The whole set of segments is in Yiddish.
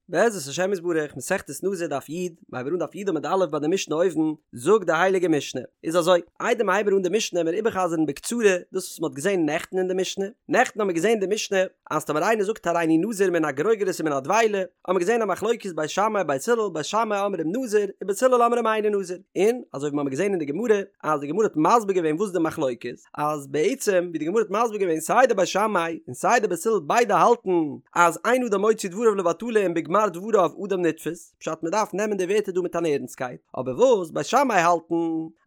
בעזרת השם יתברך, מסכת נזיר דף י', מ'הייבן אן דף י' עמוד א' ביי די משנה אויבן, זאגט די הייליגע משנה, איז אזוי, איידער מ'הייבן אן די משנה עמיר איבערחזר'ן בקצרה דאס וואס מ'האט געזען נעכטן אין די משנה, נעכטן האמיר געזען די משנה אז טאמער איינער זאגט הריני נזיר מן הגרוגרת ומן הדבילה, האמיר געזען א מחלוקת בית שמאי בית הלל, בית שמאי אומרים נזיר, ובית הלל אומרים אינו נזיר, און אזוי ווי מ'האמיר געזען אין די גמרא, אז די גמרא האט מסביר געווען וואס די מחלוקת, אז בעצם ווי די גמרא האט מסביר געווען סיי די בית שמאי און סיי די בית הלל ביידע האלטן אז אין אדם מוציא דבריו לבטלה און בגמר דבריו אדם נתפס, פשט מען דארף נעמען די ווערטער דא מיט אן ערנסטקייט, אבער וואס בית שמאי האלטן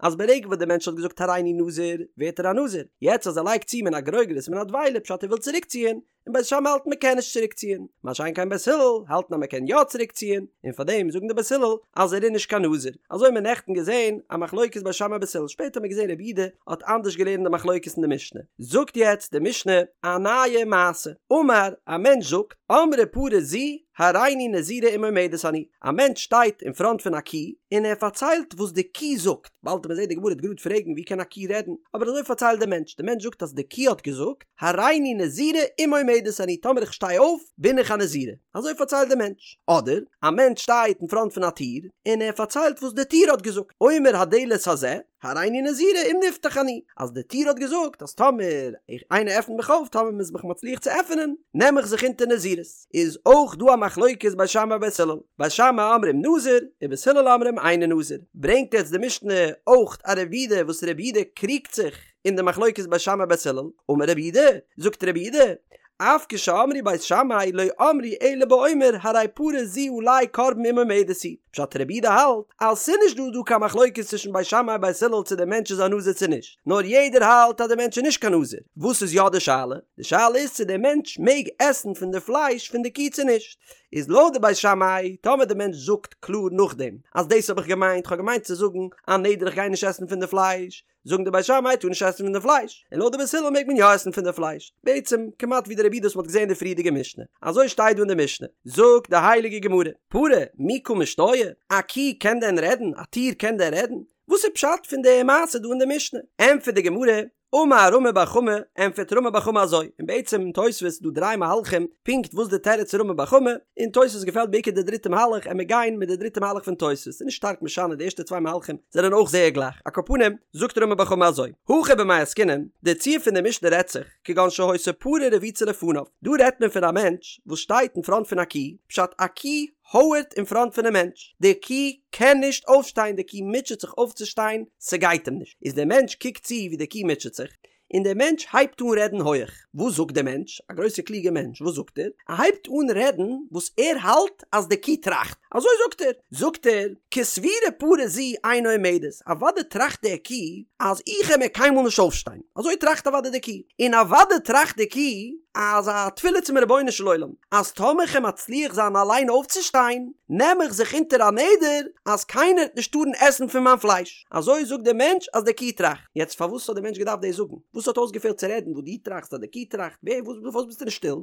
אז ברגע וואס די מענטש האט געזאגט הריני נזיר ווערט ער א נזיר, יעצט אז ער לייגט צו מן הגרוגרת מן הדבילה פשט ער וויל צוריקציען, און בית שמאי האלטן מען קען נישט צוריק ציען, מה שאין כן בית הלל האלטן אז מען קען יא צוריק ציען, און פאר דעם זאגן די בית הלל אז ער איז נישט קיין נזיר, אזוי האט מען נעכטן געזען א מחלוקת בית שמאי בית הלל, שפעטער האט מען געזען רבי יהודה האט אנדערש געלערנט די מחלוקת אין די משנה, זאגט יעצט די משנה א נייע מעשה, אמר, א מענטש זאגט, אמרה פרה זו הריני נזירה אם עומדת אני, א מענטש שטייט אין פראנט פון א קי און ער פארציילט וואס די קי זאגט, באלד וועט מען זען די גמרא וועט גראד פרעגן ווי קען א קי רעדן, אבער אזוי פארציילט דער מענטש, דער מענטש זאגט אז די קי האט געזאגט, הריני נזירה אם עומדת אני, טאמער איך שטיי אויף בין איך א נזירה, אזוי פארציילט דער מענטש. אדער, א מענטש שטייט אין פראנט פון א טיר, און ער פארציילט וואס די טיר האט געזאגט, אומר הדלת הזה, הריני נזירה אם נפתח אני, אז די טיר האט געזאגט אז טאמער איך איינער עפנט מיך אויף, טאמער מ'איז מיך מצליח צו עפענען, נעם איך זיך אונטער נזירות. איז אויך דא א מחלוקת בית שמאי ובית הלל, בית שמאי אומרים נזיר, ובית הלל אומרים אינו נזיר. ברענגט יעצט די משנה אויך א רבי יהודה וואס רבי יהודה קריגט זיך אין די מחלוקת בית שמאי בית הלל, אמר רבי יהודה, זאגט רבי יהודה, אף כשאמרו בית שמאי לא אמרו אלא באומר הרי פרה זו עלי קרבן אם עומדת היא, פשט רבי יהודה האלט אז ס'נישט דא דא קיין מחלוקת צווישן בית שמאי בית הלל צו דער מענטש איז א נזיר צו נישט, נאר יעדער האלט אז דער מענטש איז נישט קיין נזיר, וואס איז יא די שאלה? די שאלה איז צו דער מענטש מעג עסן פון די פלייש פון די קי צו נישט, איז לויט די בית שמאי טאמער די מענטש זאגט קלאר נאכדעם אז דאס האב איך געמיינט, כ'האב געמיינט צו זאגן א נדר איך גיי נישט עסן פון די פלייש, זאגן די בית שמאי טאר נישט עסן פון די פלייש, און לויט די בית הלל מעג מען יא עסן פון די פלייש, בעצם כמעט ווי די רבי יהודה וואס מ'האט געזען אין די פריערדיגע משנה, אזוי שטייט דא אין די משנה, זאגט די הייליגע גמרא, פרה מי קא משתעיא, א קי קען דען רעדן, א טיר קען דען רעדן? וואס איז פשט פון די מעשה דא אין די משנה? ענטפערט די גמרא, אמר רמי בר חמא, ענטפערט רמי בר חמא אזוי, און בעצם אין תוספות איז דא דריי מהלכים פונקט וואס די תירוץ פון רמי בר חמא, און תוספות געפעלט בעיקר די דריטע מהלך, עמיר גיין מיט די דריטע מהלך פון תוספות, ס'איז נישט שטארק משנה די ערשטע צוויי מהלכים זענען אויך זייער גלייך, על כל פנים זאגט רמי בר חמא אזוי, הכא במאי עסקינן, די ציור פון די משנה רעדט זיך, כגון שהיתה פרה רבוצה לפניו, דא רעדט מען פון א מענטש וואס שטייט אין פראנט פון א קי, פשט א קי הויערט אין פראנט פונעם מענטש, די קי קען נישט אויפשטיין, די קי מוטשעט זיך אויפצושטיין, ס'גייט אים נישט, איז דער מענטש קוקט צו ווי די קי מוטשעט זיך, און דער מענטש הייבט אן רעדן הויעך. וואס זאגט דער מענטש? א גרויסער קלוגער מענטש, וואס זאגט ער? ער הייבט אן רעדן וואס ער האלט אז די קו טראכט. אזוי זאגט ער. זאגט ער, כסבורה פרה זו אינה עומדת, אוודאי טראכט דער קו אז איך וועל מער קיינמאל נישט אויפשטיין. אזוי טראכט אוודאי די קו. און אוודאי טראכט די קו אז א תפילה צום רבונו של עולם, אז טאמער כ'וועל מצליח זיין אליין אויפצושטיין, נעם איך זיך אונטער א נדר אז קיינער וועט נישט טארן עסן פון מיין פלייש. אזוי זאגט דער מענטש אז די קו טראכט. יעצט פארוואס האט דער מענטש געדארפט דאס זאגן? וואס האט אויסגעפעלט צו רעדן וואס דו טראכסט אז די קו טראכט? ווער וואס פארוואס ביסטו נישט שטיל?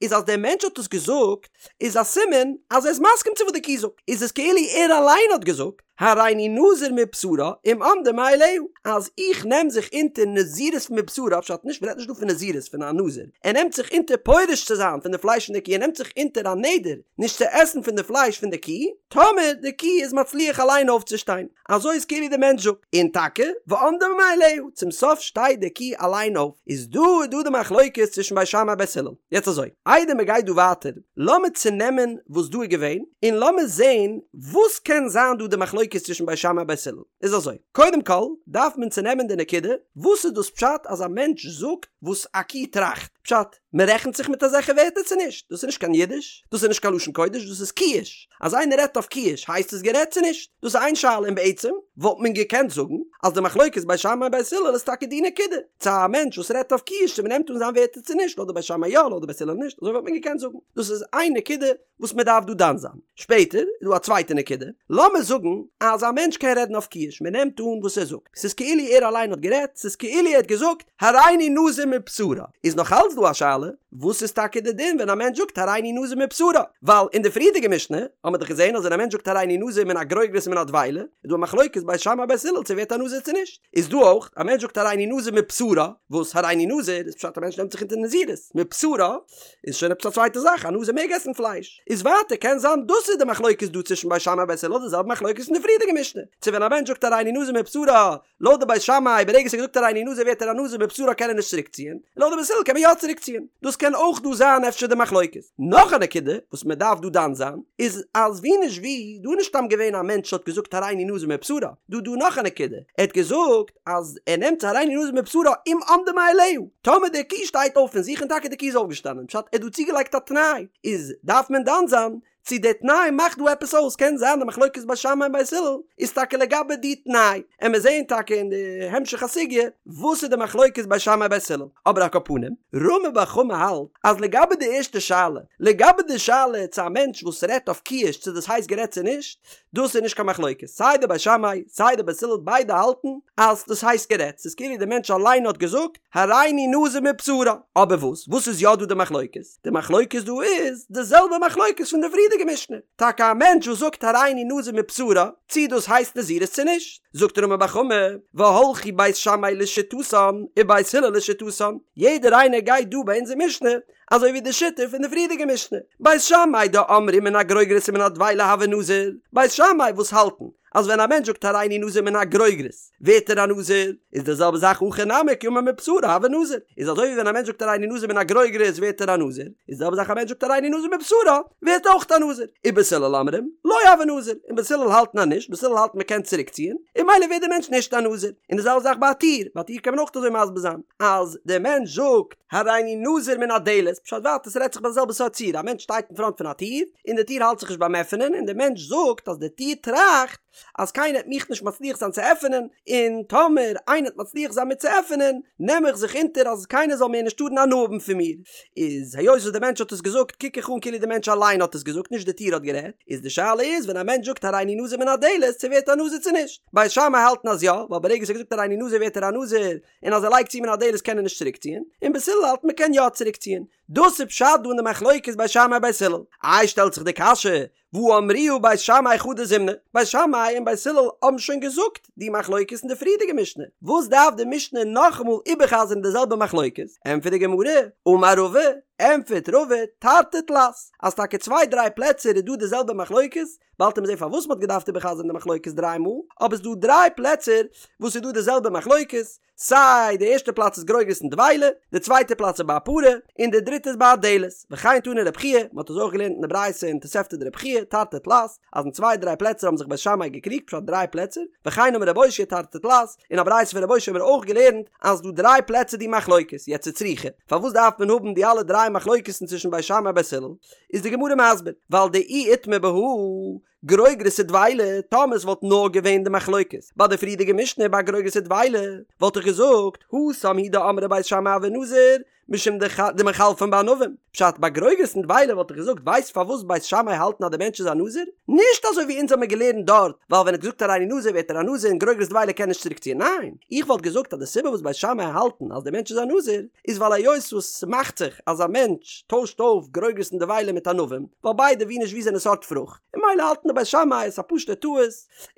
איז אז דער מענטש האט עס געזאגט איז א סימן אז ער איז מסכים צו וואס די קו זאגט. איז עס כאילו ער אליין האט געזאגט הריני נזיר מבשרה אם עמדה מאליה אז איך נעם זיך אונטער נזירות מבשרה פשט נישט מ'רעדט נישט דא פון נזירות פון א נזיר ער נעמט זיך אונטער פורש צו זיין פון די פלייש פון די קו ער נעמט זיך אונטער א נדר נישט צו עסן פון די פלייש פון די קו טאמער די קו איז מצליח אליין אויפצושטיין. אזוי איז כאילו די מענטש זאגט, און טאקע, ועמדה מאליה, צום סוף שטייט די קי אליין אויף, איז דא איז דא די מחלוקת צווישן בית שמאי בית הלל. יעצט אזוי, איידער מען גייט דא ווייטער, לאמיר צונעמען וואס דא איז געווען, און לאמיר זען וואס קען זיין דא די מחלוקת צווישן בית שמאי בית הלל. איז אזוי, קודם כל דארף מען צונעמען די נקודה, וואס איז דאס פשט אז א מענטש זאגט וואס א קי טראכט? פשט, מען רעכנט זיך מיט אזעלכע ווערטער צו נישט? דאס איז נישט קיין אידיש, דאס איז נישט קיין לשון קודש, דאס איז קיש. אז איינער רעדט אויף קיש הייסט עס גערעדט צו נישט? דאס איז איין שאלה און בעצם וואלט מען געקענט זאגן אז די מחלוקת בית שמאי בית הלל איז טאקע די נקודה, צו א מענטש וואס רעדט אויף קיש צו מען נעמט אן זיין ווערטער צו נישט, לויט די בית שמאי יא לויט די בית הלל נישט, אזוי וואלט מען געקענט זאגן. דאס איז איין נקודה וואס מען דארף דא דן זיין. שפעטער איז דא א צווייטע נקודה, לאמיר זאגן אז א מענטש קען רעדן אויף קיש, מען נעמט אן וואס ער זאגט, ס'איז כאילו ער אליין האט גערעדט, ס'איז כאילו ער האט געזאגט הריני נזיר מבשרה, איז נאך אלץ דא א שאלה, וואס איז טאקע די דין ווען א מענטש זאגט הריני נזיר מבשרה? ווייל אין די פריערדיגע משנה האט מען דאך געזען אז ווען א מענטש זאגט הריני נזיר מן הגרוגרת ומן הדבילה, איז דא א מחלוקת בית שמאי בית הלל צו ווערט א נזיר צו נישט. איז דא אויך, א מענטש זאגט הריני נזיר מבשרה, וואס הריני נזיר איז פשט א מענטש נעמט זיך אונטער נזירות, מבשרה איז שוין עפעס א צווייטע זאך, א נזיר מעג עסן פלייש. איז ווייטער קען זיין דאס איז די מחלוקת דא צווישן בית שמאי בית הלל די זעלבע מחלוקת אין די פריערדיגע משנה, צו ווען א מענטש זאגט הריני נזיר מבשרה, לויט די בית שמאי ברגע ס'האט געזאגט הריני נזיר ווערט ער א נזיר מבשרה קען ער נישט צוריק ציען, און לויט די בית הלל קען מען יא צוריק ציען. דאס קען אויך דא זיין אפשר די מחלוקת. נאך א נקודה וואס מען דארף דא דן זיין איז אז ווי נישט ווי דא איז נישט סתם געווען א מענטש האט געזאגט הריני נזיר מבשרה, דא דא נאך א נקודה, ער האט געזאגט אז ער נעמט הריני נזיר מבשרה אם עמדה מאליה, טאמער די קו שטייט אויף פון זיך און טאקע די קו איז אויפגעשטאנען פשט ער האט דא צוגעלייגט א תנאי איז דארף מען דן זיין צו די תנאי מאכט דא עפעס אויס, קען זיין די מחלוקת בית שמאי און בית הלל איז טאקע לגבי די תנאי, עמיר זעהן טאקע אין די המשך הסוגיא וואס איז די מחלוקת בית שמאי בית הלל, אבער על כל פנים, רמי בר חמא האלט אז לגבי די ערשטע שאלה, לגבי די שאלה צו א מענטש וואס רעדט אויף קיש צו דאס הייסט גערעדט צו נישט, דאס איז נישט קיין מחלוקת, סיי די בית שמאי סיי די בית הלל ביידע האלטן אז דאס הייסט גערעדט, ס'איז כאילו די מענטש אליין האט געזאגט הריני נזיר מבשרה, אבער וואס וואס איז יא דא די מחלוקת? די מחלוקת דא איז די זעלבע מחלוקת פון די פריערדיגע משנה, טאקע א מענטש וואס זאגט הריני נזיר מבשרה, צי דאס הייסט נזירות צו נישט, זאגט רמי בר חמא, והלכו בית שמאי לשיטתן ובית הלל לשיטתן, יעדער איינער גייט דא ביי אונזער משנה אזוי ווי די שיטה פון די פריערדיגע משנה, בית שמאי דאמרי מן הגרוגרת ומן הדבילה הוי נזיר, בית שמאי וואס האלטן אז ווען א מענטש זאגט הריני נזיר מן הגרוגרת ווערט ער א נזיר, איז די זעלבע זאך הכא נמי כי אמר מבשרה הוי נזיר, איז אזוי ווי ווען א מענטש זאגט הריני נזיר מן הגרוגרת ווערט ער א נזיר, איז די זעלבע זאך א מענטש זאגט הריני נזיר מבשרה ווערט אויך א נזיר, ובית הלל אומרים לא הוי נזיר, און בית הלל האלטן אז נישט, בית הלל האלטן מען קען צוריק ציען, און ממילא ווערט די מענטש נישט א נזיר, און די זעלבע זאך ביי א טיר, ביי א טיר קען מען אויך אזוי מסביר זיין, אז דער מענטש זאגט הריני נזיר מן הדלת, פשט ווייטער ס'רעדט זיך ביי די זעלבע סארט ציור, א מענטש שטייט אין פראנט פון א טיר, און די טיר האלט זיך נישט ביים עפענען, און דער מענטש זאגט אז די טיר טראכט אז קיינער וועט מיך נישט מצליח זיין צו עפענען, און טאמער איינער וועט מצליח זיין מיר צו עפענען, נעם איך זיך אונטער אז קיינער זאל מער נישט טארן הנאה האבן פון מיר. איז היות וואס דער מענטש האט עס געזאגט קוק איך אן כאילו דער מענטש אליין האט עס געזאגט נישט די טיר האט גערעדט, איז די שאלה איז ווען א מענטש זאגט הריני נזיר מן הדלת צו ווערט א נזיר צו נישט. בית שמאי האלטן אז יא, ווייל ברגע ס'האט געזאגט הריני נזיר ווערט ער א נזיר, און אז ער לייגט צו מן הדלת קען ער נישט צוריקציען, און בית הלל האלט מ'קען יא צוריקציען. דאס איז פשט דא אין די מחלוקת בית שמאי בית הלל. איי שטעלט זיך די קשיא, והא אמרוה בית שמאי חדא זימנא, בית שמאי און בית הלל האבן שוין געזאגט די מחלוקת אין די פריערדיגע משנה, וואס דארף די משנה נאכאמאל איבערחזר'ן די זעלבע מחלוקת? ענטפערט די גמרא, אמר רבא, ענטפערט רבא, תרתי תלת, אז טאקע צוויי דריי פלעצער איז דא די זעלבע מחלוקת, באלד וועט מען זען פארוואס מ'האט געדארפט איבערחזר'ן די מחלוקת דריי מאל, אבער ס'דא דריי פלעצער וואס איז דא די זעלבע מחלוקת, סיי די ערשטע פלאץ איז גרוגרת און דבילה, די צווייטע פלאץ איז ביי א פרה, און די דריטע איז ביי א דלת. וכן תני רב חייא, מ'האט עס אויך געלערנט אין די ברייתא אין תוספתא דרב חייא, תרתי תלת, אז אין צוויי דריי פלעצער האבן זיך בית שמאי געקריגט, פשט דריי פלעצער, וכן אמר רב אושעיא תרתי תלת, אין א ברייתא פון רב אושעיא האבן מיר אויך געלערנט אז דא דריי פלעצער די מחלוקת, יעצט וצריכא, פארוואס דארף מען האבן די אלע דריי מחלוקת'ן צווישן בית שמאי און בית הלל? איז די גמרא מסביר, ווייל דאי איתמר בהא גרוגרת ודבילה, טאמער עס וואלט נאר געווען די מחלוקת ביי די פריערדיגע משנה ביי גרוגרת ודבילה, וואלט איך געזאגט, התם הוא דאמרי בית שמאי הוי נזיר, משום דמיחלפן בענבים. פשט, ביי גרוגרת און דבילה וואלט איך געזאגט, ווייסט פארוואס בית שמאי האלטן אז די מענטש איז א נזיר? נישט אזוי ווי אונז האמיר געלערנט דארט, ווייל ווען ער האט געזאגט הריני נזיר ווערט ער א נזיר און גרוגרת דבילה קען נישט צוריקציען, ניין, איך וואלט געזאגט אז די סיבה וואס בית שמאי האלטן אז די מענטש איז א נזיר, איז ווייל היות וואס ס'מאכט זיך אז א מענטש טוישט אויף גרוגרת און דבילה מיט ענבים, ווייל ביידע ווי נישט ווי זענען סארט פרוכט, און ממילא האלטן די בית שמאי עס א פשוט'ע טעות,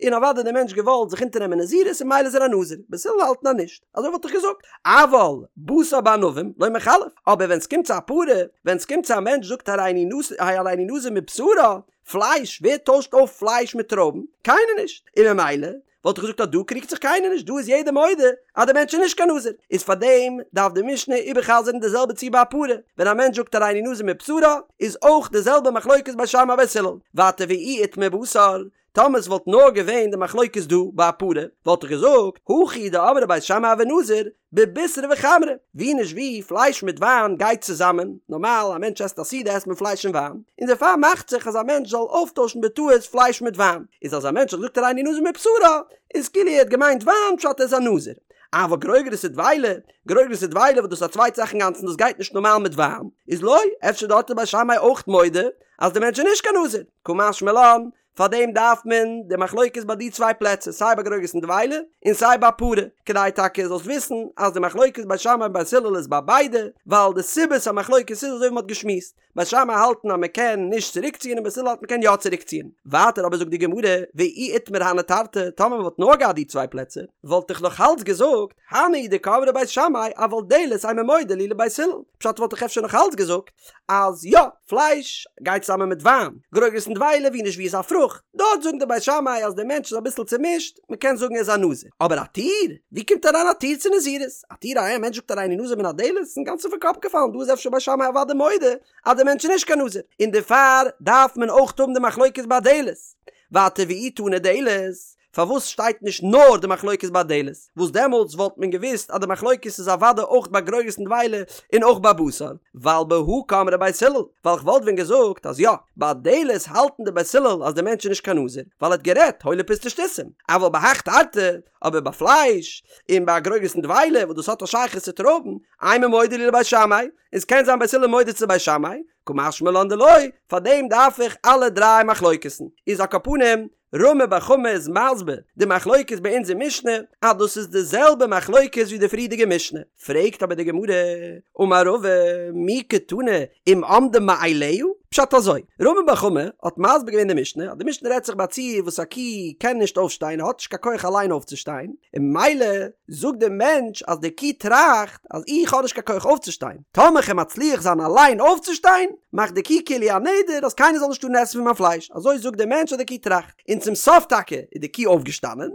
און אוודאי די מענטש געוואלט זיך אונטערנעמען נזירות און ממילא איז ער א נזיר, בית הלל האלטן אז נישט, אזוי וואלט איך געזאגט, אבל בשר בענבים לא מיחלף, אבער ווען ס'קומט צו א פרה, ווען ס'קומט צו א מענטש זאגט הריני נזיר מבשרה, פלייש, ווער טוישט אויף פלייש מיט טרויבן? קיינער נישט, און ממילא וואלט איך געזאגט אז דא קריגט זיך קיינער נישט, דא איז יעדער מודה אז דער מענטש איז נישט קיין נזיר, איז פארדעם דארף די משנה איבערחזר'ן די זעלבע ציור ביי א פרה, ווען א מענטש זאגט הריני נזיר מבשרה, איז אויך די זעלבע מחלוקת בית שמאי בית הלל, ווייטער ואי איתמר בשר, טאמער עס וואלט נאר געווען די מחלוקת דא ביי א פרה, וואלט איך געזאגט, הכא הוא דאמרי בית שמאי הוי נזיר, בבישרא וחמרא, ווי נישט ווי, פלייש מיט וויין גייט צוזאמען, נארמאל א מענטש עסט א סעודה עסט מען פלייש און וויין, און דערפאר מאכט זיך אז א מענטש זאל אויפטוישן בטעות פלייש מיט וויין, איז אז א מענטש האט געזאגט הריני נזיר מבשרה, איז כאילו ער האט געמיינט וויין פשט ער איז א נזיר. אבל גרוגרת ודבילה, גרוגרת ודבילה וואס דאס איז א צווייטע זאך אינגאנצן דאס גייט נישט נארמאל מיט וויין, איז לא, אפשר דארט איז בית שמאי אויך מודה אז די מענטש איז נישט קיין נזיר, קא משמע לן, פארדעם דארף מען די מחלוקת ביי די צוויי פלעצער סיי ביי גרוגרת און דבילה און סיי ביי פרה, כדי טאקע זאלסט וויסן אז די מחלוקת בית שמאי און בית הלל איז ביי ביידע, ווייל די סיבת המחלוקת איז אזוי ווי מען האט געשמועסט, בית שמאי האלטן אז מען קען נישט צוריקציען און בית הלל האלט מען קען יא צוריקציען. ווייטער אבער זאגט די גמרא, ואי איתמר הני תרתי, טאמער מען וואלט נאר געהאט די צוויי פלעצער, וואלט איך נאך אלץ געזאגט, הני הוא דקאמרי בית שמאי אבל דלת אימא מודה להו לבית הלל, פשט וואלט איך אפשר נאך אלץ געזאגט אז יא, פלייש גייט צוזאמען מיט וויין, גרוגרת און דבילה ווי נישט ווי איז א פרוכט, דארט זאגן די בית שמאי אז דער מענטש איז אביסל צומישט, מען קען זאגן ער איז א נזיר. אבער א טיר? ווי קומט אריין א טיר צו נזירות? א טיר א מענטש זאגט הריני נזיר מן הדלת? איז אינגאנצן פון קאפ געפאלן, דא איז אפשר בית שמאי אוודאי מודה אז דער מענטש איז נישט קיין נזיר, און דערפאר דארף מען אויך האבן די מחלוקת ביי דלת. ווייטער ואי תנא דלת, פארוואס שטייט נישט נאר די מחלוקת ביי דלת, וואס דעמאלטס וואלט מען געוואוסט אז די מחלוקת איז אוודאי אויך ביי גרוגרת און דבילה און אויך ביי בשר, ווייל בהא קאמרי בית הלל, ווייל כ'וואלט ווען געזאגט אז יא, ביי דלת האלטן די בית הלל אז די מענטש איז נישט קיין נזיר, ווייל ער האט גערעדט הוילע פוסטע שטותים, אבל בהך תרתי, אבער ביי פלייש, און ביי גרוגרת און דבילה וואס דאס האט א שייכות צו טרויבן, אימא מודה להו לבית שמאי, און ס'קען זיין בית הלל מודה צו בית שמאי, קא משמע לן דלא, פארדעם דארף איך אלע דריי מחלוקת'ן. איז על כל פנים, רמי בר חמא איז מסביר די מחלוקת ביי אונזער משנה אז דאס איז די זעלבע מחלוקת ווי די פריערדיגע משנה, פרעגט אבער די גמרא, אמר רבא, מי קתני אם עמדה מאליה? פשט אזוי, רמי בר חמא האט מסביר געווען די משנה אז די משנה רעדט זיך ביי א ציור וואס א קי קען נישט אויפשטיין האט נישט קיין כח אליין אויפצושטיין, און ממילא זאגט דער מענטש אז די קי טראכט אז איך האב נישט קיין כח אויפצושטיין, טאמער כ'וועל מצליח זיין אליין אויפצושטיין, מאכט די קי כאילו א נדר אז קיינער זאל נישט טארן עסן פון מיין פלייש, אזוי זאגט דער מענטש אז די קי טראכט, און צום סוף טאקע איז די קי אויפגעשטאנען,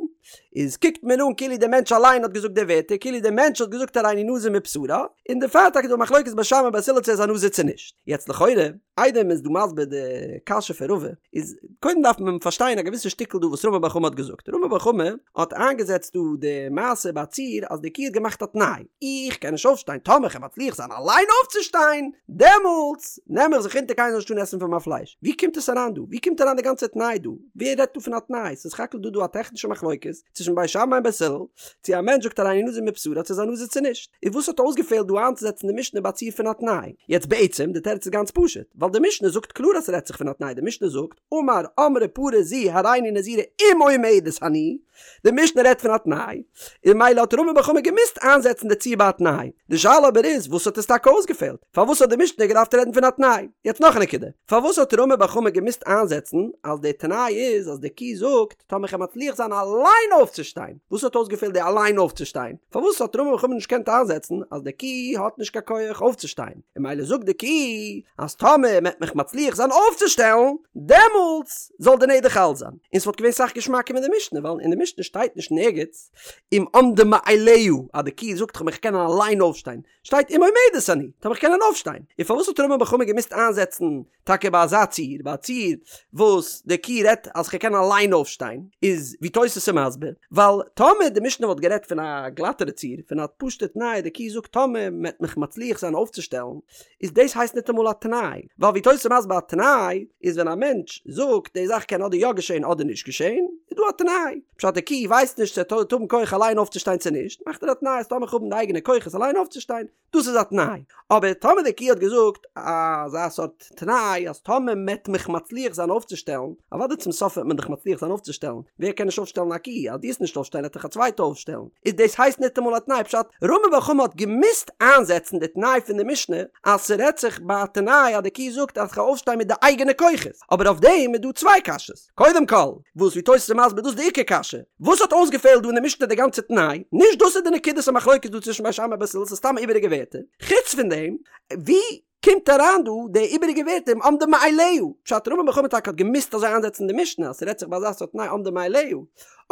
איז קוקט מען אן כאילו דער מענטש אליין האט געזאגט די ווערטער, כאילו דער מענטש האט געזאגט הריני נזיר מבשרה, און דערפאר טאקע איז דא א מחלוקת בית שמאי בית הלל צו ער איז א נזיר צו נישט. יעצט לכאורה, איידער מען איז דא מסביר די קשיא פון רבא, איז קודם דארף מען פארשטיין א געוויסע שטיקל דא וואס רמי בר חמא האט געזאגט. רמי בר חמא האט איינגעזעצט דא די מעשה ביי א ציור אז די קי האט געמאכט א תנאי, איך קען נישט אויפשטיין, טאמער כ'וועל מצליח זיין אליין אויפצושטיין, דעמאלטס נעם איך זיך אונטער קיינער זאל נישט טארן עסן פון מיין פלייש. ווי קומט עס אריין דא? ווי קומט אריין די גאנצע תנאי דא? ווער רעדט דא פון א תנאי? ס'איז סך הכל דא דא א טעכנישע מחלוקת צווישן בית שמאי און בית הלל, צו א מענטש זאגט הריני נזיר מבשרה צו איז א נזיר צו נישט. איז וואס האט אויסגעפעלט דא איינצוזעצן די משנה ביי א ציור פון א תנאי? יעצט בעצם, די תירוץ איז גאנץ פשוט, ווייל די משנה זאגט קלאר אז ס'רעדט זיך פון א תנאי, די משנה זאגט, אמר אמרה פרה זו הריני נזירה אם עומדת אני, די משנה רעדט פון א תנאי, און ממילא האט רמי בר חמא געמוזט איינזעצן די ציור ביי א תנאי. די שאלה אבער איז, וואס האט עס טאקע אויסגעפעלט? פארוואס האט די משנה געדארפט רעדן פון א תנאי? יעצט נאך א נקודה, פארוואס האט רמי בר חמא געמוזט איינזעצן אז די תנאי איז אז די קו זאגט טאמער כ'וועל מצליח זיין אליין אויפצושטיין? וואס האט אויסגעפעלט די אליין אויפצושטיין? פארוואס האט רמי בר חמא נישט געקענט איינזעצן אז די קו האט נישט קיין כח אויפצושטיין? און ממילא זאגט די קו אז טאמער מ'עט מיך מצליח זיין אויפצושטעלן דעמאלטס זאל די נדר חל זיין. און ס'וואלט געווען סאך געשמאקער מיט די משנה ווייל אין די משנה שטייט נישט נערגעץ אם עמדה מאליה אז די קו זאגט כ'מיך קענען אליין אויפשטיין שטייט אם עומדת אני, טאמער איך קען אויפשטיין. און פארוואס האט רמי בר חמא געמוזט איינזעצן טאקע ביי אזא ציור, ביי א ציור וואס די קו רעדט אז כ'קען אליין אויפשטיין, איז ווי תוס' איז מסביר, ווייל טאמער די משנה וואלט גערעדט פון א גלאטערע ציור, פון א פשוטע תנאי, די קו זאגט טאמער מ'עט מיך מצליח זיין אויפצושטעלן, איז דאס הייסט ניטאמאל א תנאי, ווייל ווי תוס' איז מסביר א תנאי איז ווען א מענטש זאגט די זאך קען אדער יא געשען אדער נישט געשען, איז דא א תנאי. פשט די קי ווייסט נישט צו ער וועט האבן כח אליין אויפצושטיין צו נישט, מאכט ער א תנאי אז טאמער איך האב די אייגענע כוחות אליין אויפצושטיין, דאס איז א תנאי. אבער טאמער די קי האט געזאגט אזא סארט תנאי אז טאמער מ'עט מיך מצליח זיין אויפצושטעלן, אוודאי צום סוף וועט מען דיך מצליח זיין אויפצושטעלן, ווער קען נישט אויפשטעלן א קי, אז דו וועסט נישט אויפשטיין וועט דיך א צווייטע אויפשטעלן, איז דאס הייסט ניטאמאל א תנאי, פשט, רמי בר חמא האט געמוזט איינזעצן די תנאי פון די משנה אז ס'רעדט זיך ביי א תנאי אז די קי זאגט אז כ'וועל אויפשטיין מיט די אייגענע כוחות, אבער אויף דעם איז דא צוויי קשיות. קודם כל, וואס ווי תוס' איז מסביר דאס איז די עיקר קשיא, וואס האט אויסגעפעלט דא אין די משנה די גאנצע תנאי, נישט דאס איז די נקודת המחלוקת דא צווישן בית שמאי ובית הלל ס'איז סתם איבעריגע ווערטער, חוץ פון דעם, ווי קומט אריין דא די איבעריגע ווערטער אם עמדה מאליה, פשט רמי בר חמא טאקע האט געמוזט אזוי איינזעצן די משנה אז ס'רעדט זיך ביי אזא סארט תנאי עמדה מאליה,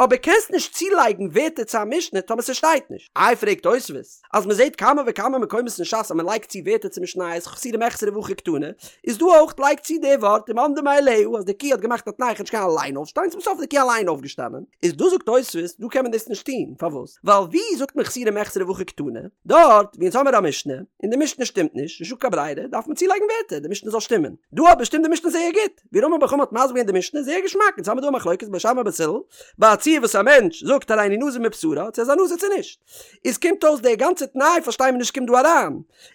אבער קענסט נישט צולייגן ווערטער צו א משנה טאמער ס'שטייט נישט. איי פרעגט תוספות, אז מ'זעט כמה וכמה מקומות אין ש"ס אז מ'לייגט צו ווערטער צו משניות חסורי מחסרא והכי קתני, איז דא אויך לייג צו די ווארט אם עמדה מאליה אז די קי האט געמאכט א תנאי איך וועל נישט קענען אליין אויפשטיין צום סוף איז די קי אליין אויפגעשטאנען, איז דא זאגט תוספות דא קען מען דאס נישט טון, פארוואס? ווייל ווי זאגט מען חסורי מחסרא והכי קתני? דארט ווי אונז האמיר א משנה און די משנה שטימט נישט, נישטא קיין ברירה דארף מען צולייגן ווערטער די משנה זאל שטימען, דא אבער שטימט די משנה זייער גוט. ווי רמי בר חמא האט מסביר געווען די משנה זייער געשמאק, אונז האמיר דא א מחלוקת בית שמאי בית הלל, ביי א ציור. ציור וואס א מענטש זאגט הריני נזיר מבשרה, צו ער איז א נזיר צו נישט. איז קומט אויס די גאנצע תנאי פארשטיי מיר נישט קומט דא אריין.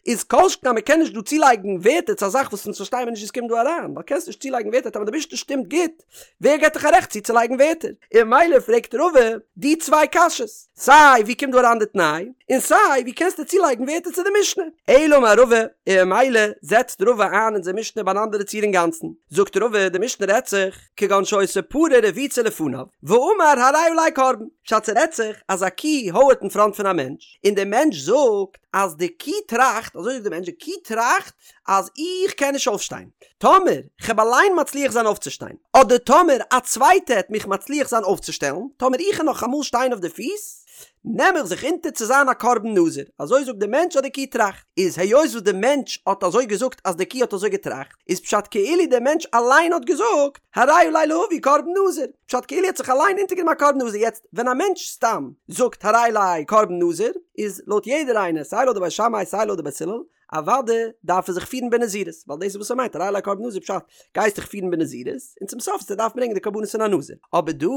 איז כל שכן אז מ'קען נישט דא צולייגן ווערטער צו א זאך וואס אונז פארשטיי מיר נישט ווי ס'קומט דא אריין, ווייל קענסט נישט צולייגן ווערטער טאמער די משנה שטימט גוט, ווער געט דיך א רעכט צוצולייגן ווערטער? און ממילא פרעגט רבא די צוויי קשיות, סיי ווי קומט דא אריין די תנאי, און סיי ווי קענסטו צולייגן ווערטער צו די משנה? אלא אמר רבא, און ממילא זעצט רבא איין אונזער משנה ביי אן אנדערע ציור אינגאנצן. זאגט רבא, די משנה רעדט זיך, כגון שהיתה פרה רבוצה לפניו, ואמר הרי עלי קרבן, פשט ס'רעדט זיך אז א קי הויערט אין פראנט פון א מענטש, און דער מענטש זאגט אז די קי טראכט, אזוי זאגט דער מענטש, די קי טראכט אז איך קען נישט אויפשטיין, טאמער כ'העב אליין מצליח זיין אויפצושטיין, אדער טאמער א צווייטע העט מיך מצליח זיין אויפצושטעלן, טאמער איך העל נאך אמאל שטיין אויף די פיס, נעם איך זיך אונטער צו זיין א קרבן נזיר. אזוי זאגט דער מענטש אז די קי טראכט. איז היות וואס דער מענטש האט אזוי געזאגט אז די קי האט אזוי געטראכט, איז פשט כאילו דער מענטש אליין האט געזאגט, הרי עלי להביא קרבן נזיר. פשט כאילו ער האט זיך אליין אונטערגענומען א קרבן נזיר. יעצט, ווען א מענטש סתם זאגט הרי עלי קרבן נזיר, איז לויט יעדער איינער, סיי לויט די בית שמאי סיי לויט די בית הלל, אוואדע דארף ער זיך פירן בנזירות, ווייל דאס איז וואס ער מיינט, הרי עלי קרבן נזיר פשט, גייסט דיך פירן בנזירות, און צום סוף וועסטו דארפן ברענגען די קרבנות פון א נזיר. אבער דא,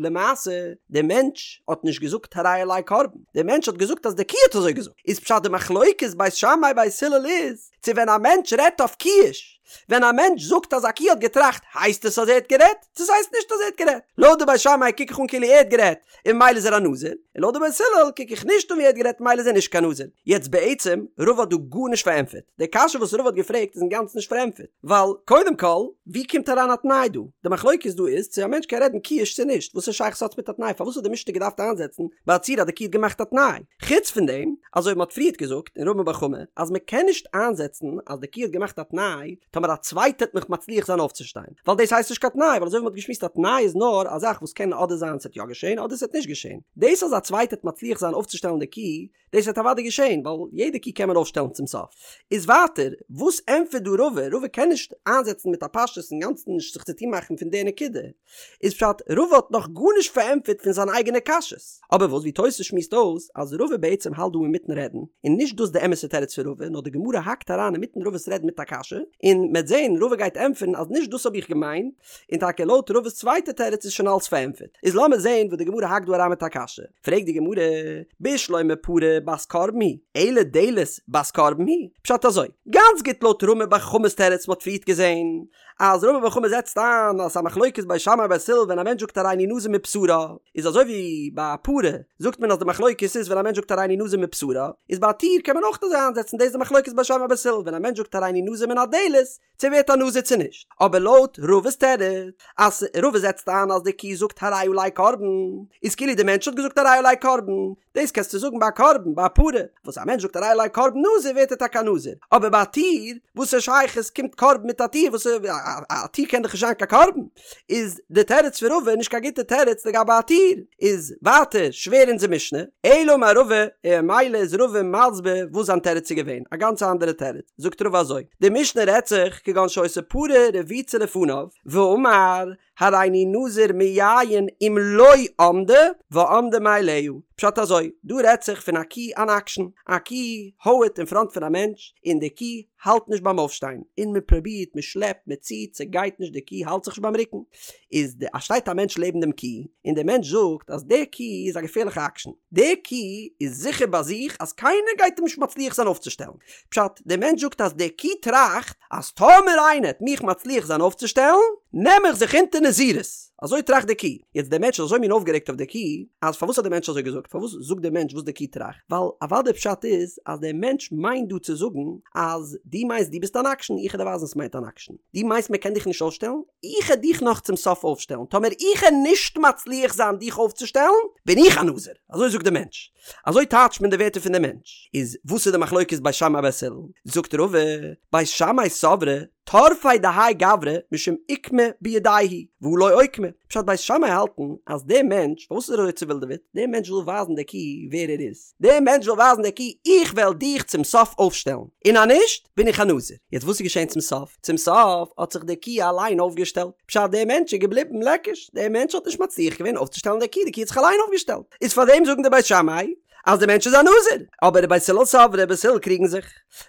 למעשה, דער מענטש האט נישט געזאגט הרי עלי קרבן, דער מענטש האט געזאגט אז די קי האט אזוי געזאגט, איז פשט די מחלוקת בית שמאי בית הלל איז, צו ווען א מענטש רעדט אויף קיש, ווען א מענטש זאגט אז א קי האט געטראכט, הייסט עס אז ער האט גערעדט, צו ס'הייסט נישט אז ער האט גערעדט. לויט די בית שמאי קוק איך אן כאילו ער האט גערעדט, און ממילא איז ער א נזיר, און לויט די בית הלל קוק איך נישט אן ווי ער האט גערעדט ממילא איז ער נישט קיין נזיר. יעצט בעצם, רבא האט דא גארנישט פארענטפערט. די קשיא וואס רבא האט געפרעגט איז אינגאנצן נישט פארענטפערט. ווייל קודם כל, ווי קומט אריין א תנאי דא? די מחלוקת דא איז צו א מענטש קען רעדן קיש צו נישט. וואס א שייכות האט עס מיט א תנאי? פארוואס האט די משנה געדארפט איינזעצן ביי א ציור אז די קי האט געמאכט א תנאי? חוץ פון דעם, אזוי ווי מען האט פריערט געזאגט אין רמי בר חמא, אז מען קען נישט איינזעצן אז די קי האט געמאכט א תנאי, טאמער א צווייטער וועט מיך מצליח זיין אויפצושטיין. ווייל דאס הייסט נישט קיין תנאי, ווייל אזוי ווי מ'האט געשמועסט א תנאי איז נאר א זאך וואס קען אדער זיין ס'עט יא געשען אדער ס'עט נישט געשען. דאס אז א צווייטער וועט מצליח זיין אויפצושטעלן די קי, דאס וועט אוודאי געשען, ווייל יעדע קי קען מען אויפשטעלן צום סוף. איז ווייטער, וואס ענטפערט דא רבא? רבא קען נישט איינזעצן מיט א פשטות אינגאנצן נישט זיך צוטון מאכן פון די נקודה. איז פשט, רבא האט נאך גארנישט פארענטפערט פון זיינע אייגענע קשיות. אבער וואס ווי תוס' שמועסט אויס אז רבא בעצם האלט דא אינמיטן רעדן, און נישט דאס די אמת'ע תירוץ פון רבא, נאר די גמרא האקט אריין אינמיטן רבא'ס רעדן מיט א קשיא, און מ'עט זען רבא גייט ענטפערן אז נישט דאס האב איך געמיינט, און טאקע לויט רבא'ס צווייטע תירוץ איז שוין אלס פארענטפערט. איז לאמיר זען וואס די גמרא האקט דא אריין מיט א קשיא. פרעגט די גמרא, בשלמא פרה בת קרבן היא, אלא דלת בת קרבן היא? פשט אזוי, גאנץ גוט לויט רמי בר חמא'ס תירוץ מ'האט פריערט געזען, אז רמי בר חמא זעצט איין אז ס'איז א מחלוקת בית שמאי בית הלל ווען א מענטש זאגט הריני נזיר מבשרה איז אזוי ווי ביי א פרה זאגט מען אז די מחלוקת איז ווען א מענטש זאגט הריני נזיר מבשרה איז ביי א טיר קען מען אויך אזוי איינזעצן דאס איז די מחלוקת בית שמאי בית הלל ווען א מענטש זאגט הריני נזיר מן הדלת צו ווערט א נזיר צו נישט אבער לויט רבא'ס תירוץ אז רבא זעצט איין אז די קי זאגט הרי עלי קרבן איז כאילו די מענטש האט געזאגט הרי עלי קרבן דאס קענסטו זאגן ביי א קרבן, ביי א פרה, וואס א מענטש זאגט הרי עלי קרבן נזיר ווערט ער טאקע א נזיר, אבער ביי א טיר, וואס א שייכות קומט קרבן מיט א טיר, וואס א טיר קען דאך נישט זיין קיין קרבן, איז די תירוץ פון רבא נישט קיין גוטע תירוץ לגבי א טיר, איז ווייטער שווער אונזער משנה, אלא אמר רבא, און ממילא איז רבא מסביר וואס זיין תירוץ איז געווען, א גאנץ אנדערע תירוץ, זאגט רבא אזוי, די משנה רעדט זיך כגון שהיתה פרה רבוצה לפניו, ואמר, הריני נזיר מיין אם לא עמדה ועמדה מאליה. פשט אזוי, דא רעדט זיך פון א קי אן אקשן, א קי הויערט אין פראנט פון א מענטש, און די קי האלט נישט ביים אויפשטיין, און מען פרובירט, מען שלעפט, מען ציט, ס'גייט נישט, די קי האלט זיך נישט ביים רוקן. איז די א שטייט א מענטש לעבן דעם קי, און דער מענטש זאגט אז די קי איז א געפערליכע אקשן, די קי איז זיכער ביי זיך אז קיינער גייט אים נישט מצליח זיין אויפצושטעלן. פשט, דער מענטש זאגט אז די קי טראכט אז טאמער איינער העט מיך מצליח זיין אויפצושטעלן, נעם איך זיך אונטער נזירות. אזוי טראכט די קי. יעצט דער מענטש איז אזוי מין אויפגערעגט אויף די קי, אז פארוואס האט דער מענטש אזוי געזאגט? פארוואס זאגט דער מענטש וואס די קי טראכט? ווייל אוודאי פשט איז אז דער מענטש מיינט דא צו זאגן אז דו מיינסט דו ביסט אן אקשן, איך העט דיר ווייזן וואס מיינט אן אקשן. דו מיינסט מען קען דיך נישט אויפשטעלן? איך העט דיך נאך צום סוף אויפשטעלן. טאמער איך העט נישט מצליח זיין דיך אויפצושטעלן, בין איך א נזיר. אזוי זאגט דער מענטש. אזוי טייטשט מען די ווערטער פון די מענטש. איז וואס איז די מחלוקת בית שמאי בית הלל? זאגט רבא, בית שמאי סברי טרפיה דהאי גברא משום אוקמה בידיה הוא והא לא אוקמה. פשט בית שמאי האלטן אז דער מענטש, פארוואס איז ער אזוי צעווילדעוועט? דער מענטש וויל ווייזן די קי ווער ער איז. דער מענטש וויל ווייזן די קי איך וועל דיך צום סוף אויפשטעלן, און אז נישט בין איך א נזיר. יעצט וואס איז געשען צום סוף? צום סוף האט זיך די קי אליין אויפגעשטעלט. פשט דער מענטש איז געבליבן לעקיש, דער מענטש האט נישט מצליח געווען אויפצושטעלן די קי, די קי האט זיך אליין אויפגעשטעלט. איז פאר דעם זאגן די בית שמאי. אז דער מענטש איז א נזיר, אבער בית הלל סברי, בית הלל קריגן זיך,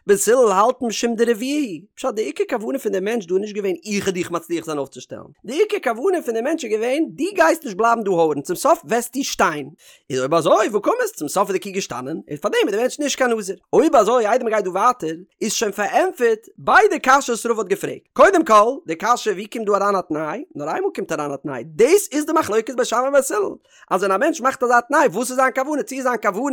בית הלל האלטן משום דרביע הוא, פשט די עיקר כוונה פון דעם מענטש דא איז נישט געווען איך וועל דיך מצליח זיין אויפצושטעלן, די עיקר כוונה פון דעם מענטש איז געווען דו גייסט נישט בלייבן דא הויערן צום סוף וועסטו שטיין, איז אויב אזוי והא קמת, צום סוף איז די קו געשטאנען, און פארדעם איז דער מענטש נישט קיין נזיר. אויב אזוי איידער מען גייט דא ווייטער, איז שוין פארענטפערט ביידע קשיות וואס רבא האט געפרעגט. קודם כל, די קשיא ווי קומט דא אריין א תנאי, נאר איינמאל קומט אריין א תנאי, דאס איז די מחלוקת בית שמאי ובית הלל, אז ווען א מענטש מאכט אזא תנאי וואס איז זיין כוונה, צו איז זיין כוונה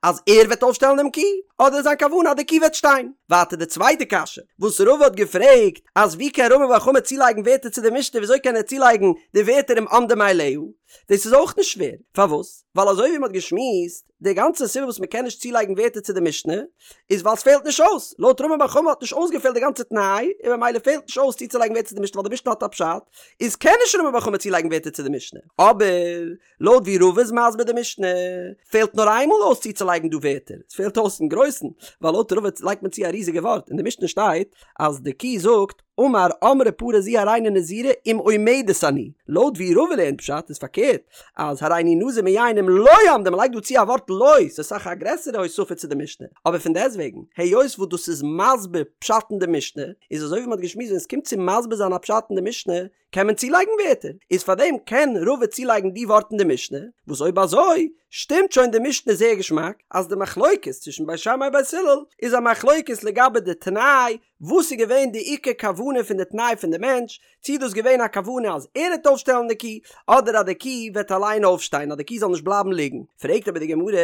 אז ער וועט אויפשטעלן דעם קו, אדער איז זיין כוונה אז די קו וועט שטיין. ווייטער די צווייטע קשיא וואס רבא האט געפרעגט, אז ווי קען רמי בר חמא צולייגן ווערטער צו די משנה, וויאזוי קען ער צולייגן די ווערטער אם עמדה מאליה, דאס איז אויך נישט שווער, פארוואס? ווייל אזוי ווי מ'האט געשמועסט, די גאנצע סיבה וואס מ'קען נישט צולייגן ווערטער צו די משנה, איז ווייל ס'פעלט נישט אויס, לויט רמי בר חמא האט נישט אויסגעפעלט די גאנצע תנאי, און ממילא פעלט נישט אויס צוצולייגן ווערטער צו די משנה ווייל די משנה האט א פשט, איז קען נישט רמי בר חמא צולייגן ווערטער צו די משנה. אבער, לויט ווי רבא איז מסביר די משנה, פעלט נאר איינמאל אויס צוצולייגן דא ווערטער, ס'פעלט אויס אין גרויסן, ווייל לויט רבא לייגט מען צו א ריזיגע ווארט, אין די משנה שטייט אז די קו זאגט, אמר אמרה פרה זו הריני נזירה אם עומדת אני, לויט ווי רבא לערנט פשט איז פארקערט אז הריני נזיר מיין אם לא עמדה מ'לייגט דא צו א ווארט לא, ס'איז אסאך א גרעסערע הוספה צו די משנה, אבער פון דעסטוועגן היות וואס דאס איז מסביר פשט אין די משנה, איז אזוי ווי מ'האט געשמועסט ווען ס'קומט צו מסביר זיין א פשט אין די משנה קען מען צולייגן ווערטער, איז פארדעם קען רבא צולייגן די ווארט אין די משנה, וואס אויב אזוי שטימט שוין די משנה זייער געשמאק אז די מחלוקת צווישן בית שמאי בית הלל איז א מחלוקת לגבי די תנאי וואס איז געווען די עיקר כוונה פון די תנאי פון די מענטש, צי איז דאס געווען א כוונה אז ער וועט אויפשטעלן די קי, אדער אז די קי וועט אליין אויפשטיין, אז די קי זאל נישט בלייבן ליגן. פרעגט אבער די גמרא,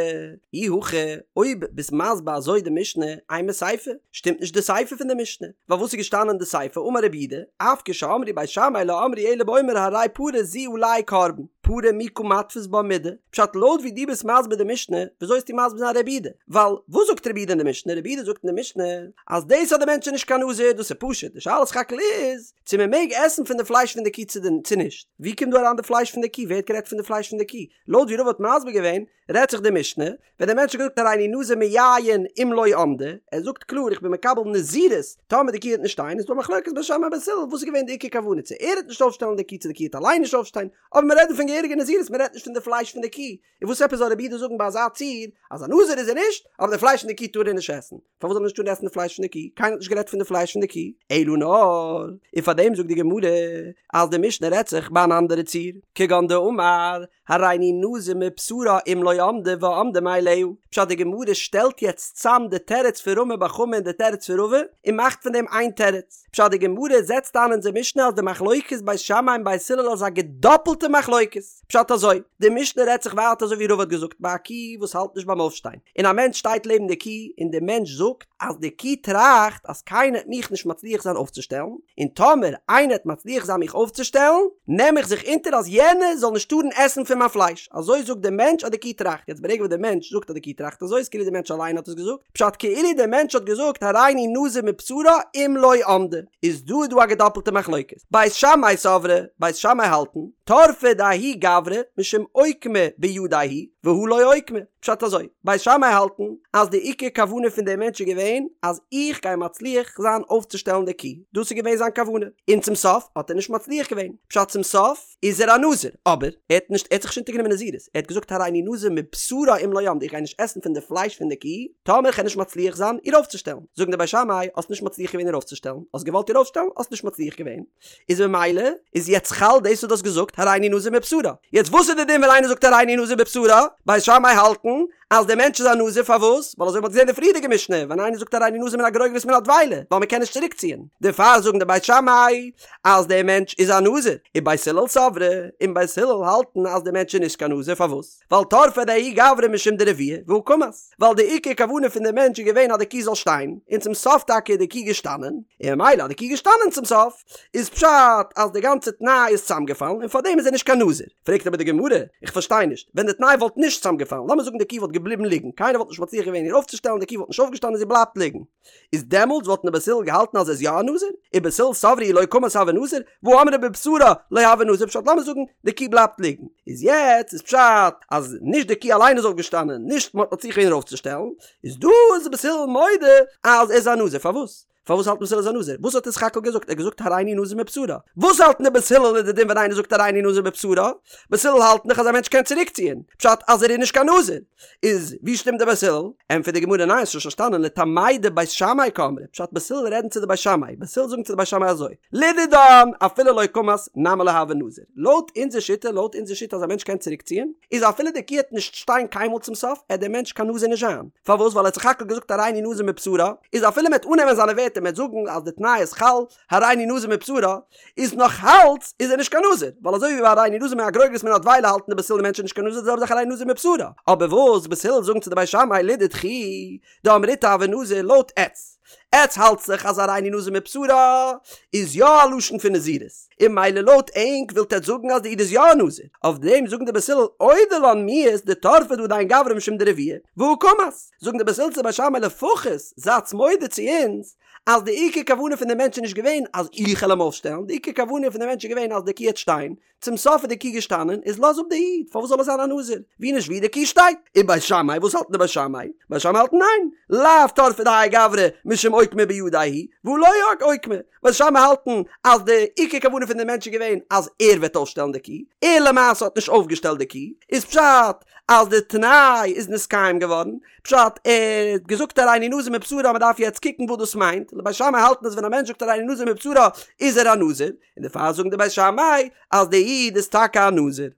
אי הכי, אויב ביסט מסביר אזוי די משנה, אימא סיפא, שטימט נישט די סיפא פון די משנה, ווייל וואס איז געשטאנען אין די סיפא, אמר רבי יהודה, אף כשאמרו בית שמאי לא אמרו אלא באומר הרי פרה זו עלי קרבן, פרה מי קא מתפיס בה מידי, פשט לויט ווי דו ביסט מסביר די משנה, וויאזוי וועסטו מסביר זיין רבי יהודה? ווייל וואס זאגט רבי יהודה אין די משנה? רבי יהודה זאגט אין די משנה, אז דאס אז די מענטש איז נישט קיין נזיר דאס איז פשוט, די שאלה סך הכל איז צו מען מעג עסן פון די פלייש פון די קו צו נישט, ווי קומט דא אריין די פלייש פון די קו, ווער האט גערעדט פון די פלייש פון די קו? לויט ווי רבא האט מסביר געווען רעדט זיך די משנה ווען די מענטש האט געזאגט הריני נזיר מיין אם לא עמדה, ער זאגט קלאר איך בין מקבל נזירות טאמער די קו וועט נישט שטיין, איז דא א מחלוקת בית שמאי בית הלל וואס איז געווען די עיקר כוונה צו ער וועט נישט אויפשטעלן די קו צו די קו וועט אליין נישט אויפשטיין, אבער מען רעדט דא פון געהעריגע נזירות מען רעדט נישט פון די פלייש פון די קו, און וואס עפעס זאל רבי יהודה זאגן ביי אזא ציור אז א נזיר איז ער נישט, אבער די פלייש פון די קי טאר ער נישט עסן? פארוואס זאל ער נישט טארן עסן די פלייש פון די קי? קיינער האט נישט גערעדט פון די פלייש פון די קי, אלא נאר, און פאר דעם זאגט די גמרא אז די משנה רעדט זיך ביי אן אנדערע ציור, כגון דאמר הריני נזיר מבשרה אם לא עמדה ועמדה מאליה, פשט די גמרא שטעלט יעצט צאם די תירוץ פון רמי בר חמא און די תירוץ פון רבא און מאכט פון דעם איין תירוץ, פשט די גמרא זעצט איין אונזער משנה אז די מחלוקת בית שמאי און בית הלל איז א געדאפלטע מחלוקת. פשט אזוי, די משנה רעדט זיך ווייטער אזוי ווי רבא האט געזאגט ביי א קי וואס האלט נישט ביים אויפשטיין, און א מענטש שטייט לעבן די קי און די מענטש זאגט אז די קי טראכט אז קיינער העט מיך נישט מצליח זיין אויפצושטעלן, און טאמער איינער העט מצליח זיין מיך אויפצושטעלן, נעם איך זיך אונטער אז יענער זאל נישט טארן עסן פון מיין פלייש, אזוי זאגט די מענטש אז די קי טראכט, יעצט ברגע וואס די מענטש זאגט אז די קי טראכט אזוי איז כאילו די מענטש אליין האט עס געזאגט, פשט כאילו די מענטש האט געזאגט הריני נזיר מבשרה אם לא עמדה, איז דא איז דא א געדאפלטע מחלוקת, בית שמאי סברי, בית שמאי האלטן, טרפא דההוא גברא משום אוקמה בידיה הוא, והא לא אוקמה, פשט אזוי, בית שמאי האלטן אז די עיקר כוונה פון דעם מענטש איז געווען אז איך גיי מצליח זיין אויפצושטעלן די קי, דאס איז געווען זיין כוונה, און צום סוף האט ער נישט מצליח געווען, פשט צום סוף איז ער א נזיר, אבער ער האט נישט, ער האט זיך נישט אונטערגענומען נזירות, ער האט געזאגט הריני נזיר מבשרה אם לא עמדה, איך גיי נישט עסן פון די פלייש פון די קי, טאמער איך וועל נישט מצליח זיין איר אויפצושטעלן, זאגן די בית שמאי, האסט נישט מצליח געווען איר אויפצושטעלן, האסט געוואלט איר אויפשטעלן, האסט נישט מצליח געווען, איז ממילא איז יעצט חל דאס וואס דו האסט געזאגט הריני נזיר מבשרה, יעצט וואס איז די דין ווען איינער זאגט הריני נזיר מבשרה, בית שמאי האלטן אז דער מענטש איז א נזיר פארוואס? ווייל אזוי ווי מ'האט געזען אין די פריערדיגע משנה, ווען איינער זאגט הריני נזיר מן הגרוגרת מן הדבילה, ווייל מ'קען נישט צוריק ציען, דערפאר זאגן די בית שמאי אז דער מענטש איז א נזיר, ובית הלל סברי, און בית הלל האלטן אז דער מענטש איז נישט קיין נזיר פארוואס? ווייל טרפא דההוא גברא משום דרביע והא קמת, ווייל די עיקר כוונה פון דעם מענטש איז געווען אז די קו זאל שטיין, און צום סוף טאקע איז די קו געשטאנען, און ממילא אז די קו געשטאנען צום סוף, איז פשט אז די גאנצע תנאי איז צוזאמגעפאלן און פארדעם איז ער נישט קיין נזיר. פרעגט אבער די גמרא, איך פארשטיי נישט, ווען די תנאי וואלט נישט צוזאמגעפאלן, לאמיר זאגן די קו וואלט געבליבן ליגן, קיינער וואלט נישט מצליח געווען איר אויפצושטעלן, די קו וואלט נישט אויפגעשטאנען זי בלייבט ליגן, איז דעמאלטס וואלטן די בית הלל געהאלטן אז ער איז יא א נזיר? ובית הלל סברי אי לא קמת הוי נזיר, והא אמרה בבשרה לא הוי נזיר, פשט לאמיר זאגן די קו בלייבט ליגן, איז יעצט איז פשט אז נישט די קו אליין איז אויפגעשטאנען, נישט מען האט מצליח געווען איר אויפצושטעלן, איז דא איז בית הלל מודה אז ער איז א נזיר, פארוואס? פארוואס האלטן בית הלל איז א נזיר? וואס האט ער סך הכל געזאגט? ער האט געזאגט הריני נזיר מבשרה. וואס האלטן די בית הלל איז די דין ווען איינער זאגט הריני נזיר מבשרה? בית הלל האלטן דאך אז א מענטש קען צוריקציען, פשט אז ער איז נישט קיין נזיר. איז ווי שטימט די בית הלל? ענטפערט די גמרא ניין האסט נישט פארשטאנען לטעמייהו דבית שמאי קאמרי, פשט בית הלל רעדן צו די בית שמאי, בית הלל זאגן צו די בית שמאי אזוי, לדידן אפילו לא קמת נמי לא הוי נזיר, לויט אונזער שיטה, לויט אונזער שיטה אז א מענטש קען צוריקציען, איז אפילו די קו העט נישט שטיין קיינמאל צום סוף, עט דער מענטש קיין נזיר נישט זיין. פארוואס? ווייל ער האט סך הכל געזאגט הריני נזיר מבשרה, איז אפילו מ'עט אננעמען זיינע ווערטער מ'עט זאגן אז די תנאי איז חל, הריני נזיר מבשרה, איז נאך אלץ איז ער נישט קיין נזיר, ווייל אזוי ווי ביי הריני נזיר מהגרוגרת מן הדבילה האלטן די בית הלל די מענטש איז נישט קיין נזיר די זעלבע זאך הריני נזיר מבשרה, אבער וואס בית הלל זאגן צו די בית שמאי לדידכו דאמריתו הוי נזיר לויט עטץ, עטץ האלטס זיך אז הריני נזיר מבשרה איז יא א לשון פון נזירות, און ממילא לויט ענק ווילט עטץ זאגן אז די איד איז יא א נזיר, אויף דעם זאגן די בית הלל אודי לן מיהת דטרפא דא דין גברא משום דרביע, והא קמת, זאגן די בית הלל צו די בית שמאי לפחות זייטס מודה צו אונז אז די עיקר כוונה פון די מענטש איז נישט געווען אז איך העל אים אויפשטעלן, די עיקר כוונה פון די מענטש איז געווען אז די קו העט שטיין, צום סוף איז די קו געשטאנען, איז לאז אפ די איד, פארוואס זאל ער זיין א נזיר? ווי נישט ווי די קו שטייט. און בית שמאי, וואס האלטן די בית שמאי? בית שמאי האלטן ניין, לאו טרפא דהאי גברא משום אוקמה בידיה הוא, והא לא אוקמה. בית שמאי האלטן אז די עיקר כוונה פון די מענטש איז געווען אז ער וועט אויפשטעלן די קו, ער למעשה האט נישט אויפגעשטעלט די קו, איז פשט אז די תנאי איז נתקיים געווארן, פשט, ער האט געזאגט הריני נזיר מבשרה מען דארף יעצט קוקן וואס דאס מיינט, בית שמאי האלטן אז ווען א מענטש זאגט הריני נזיר מבשרה איז ער א נזיר, און דערפאר זאגן די בית שמאי אז די איד איז טאקע א נזיר.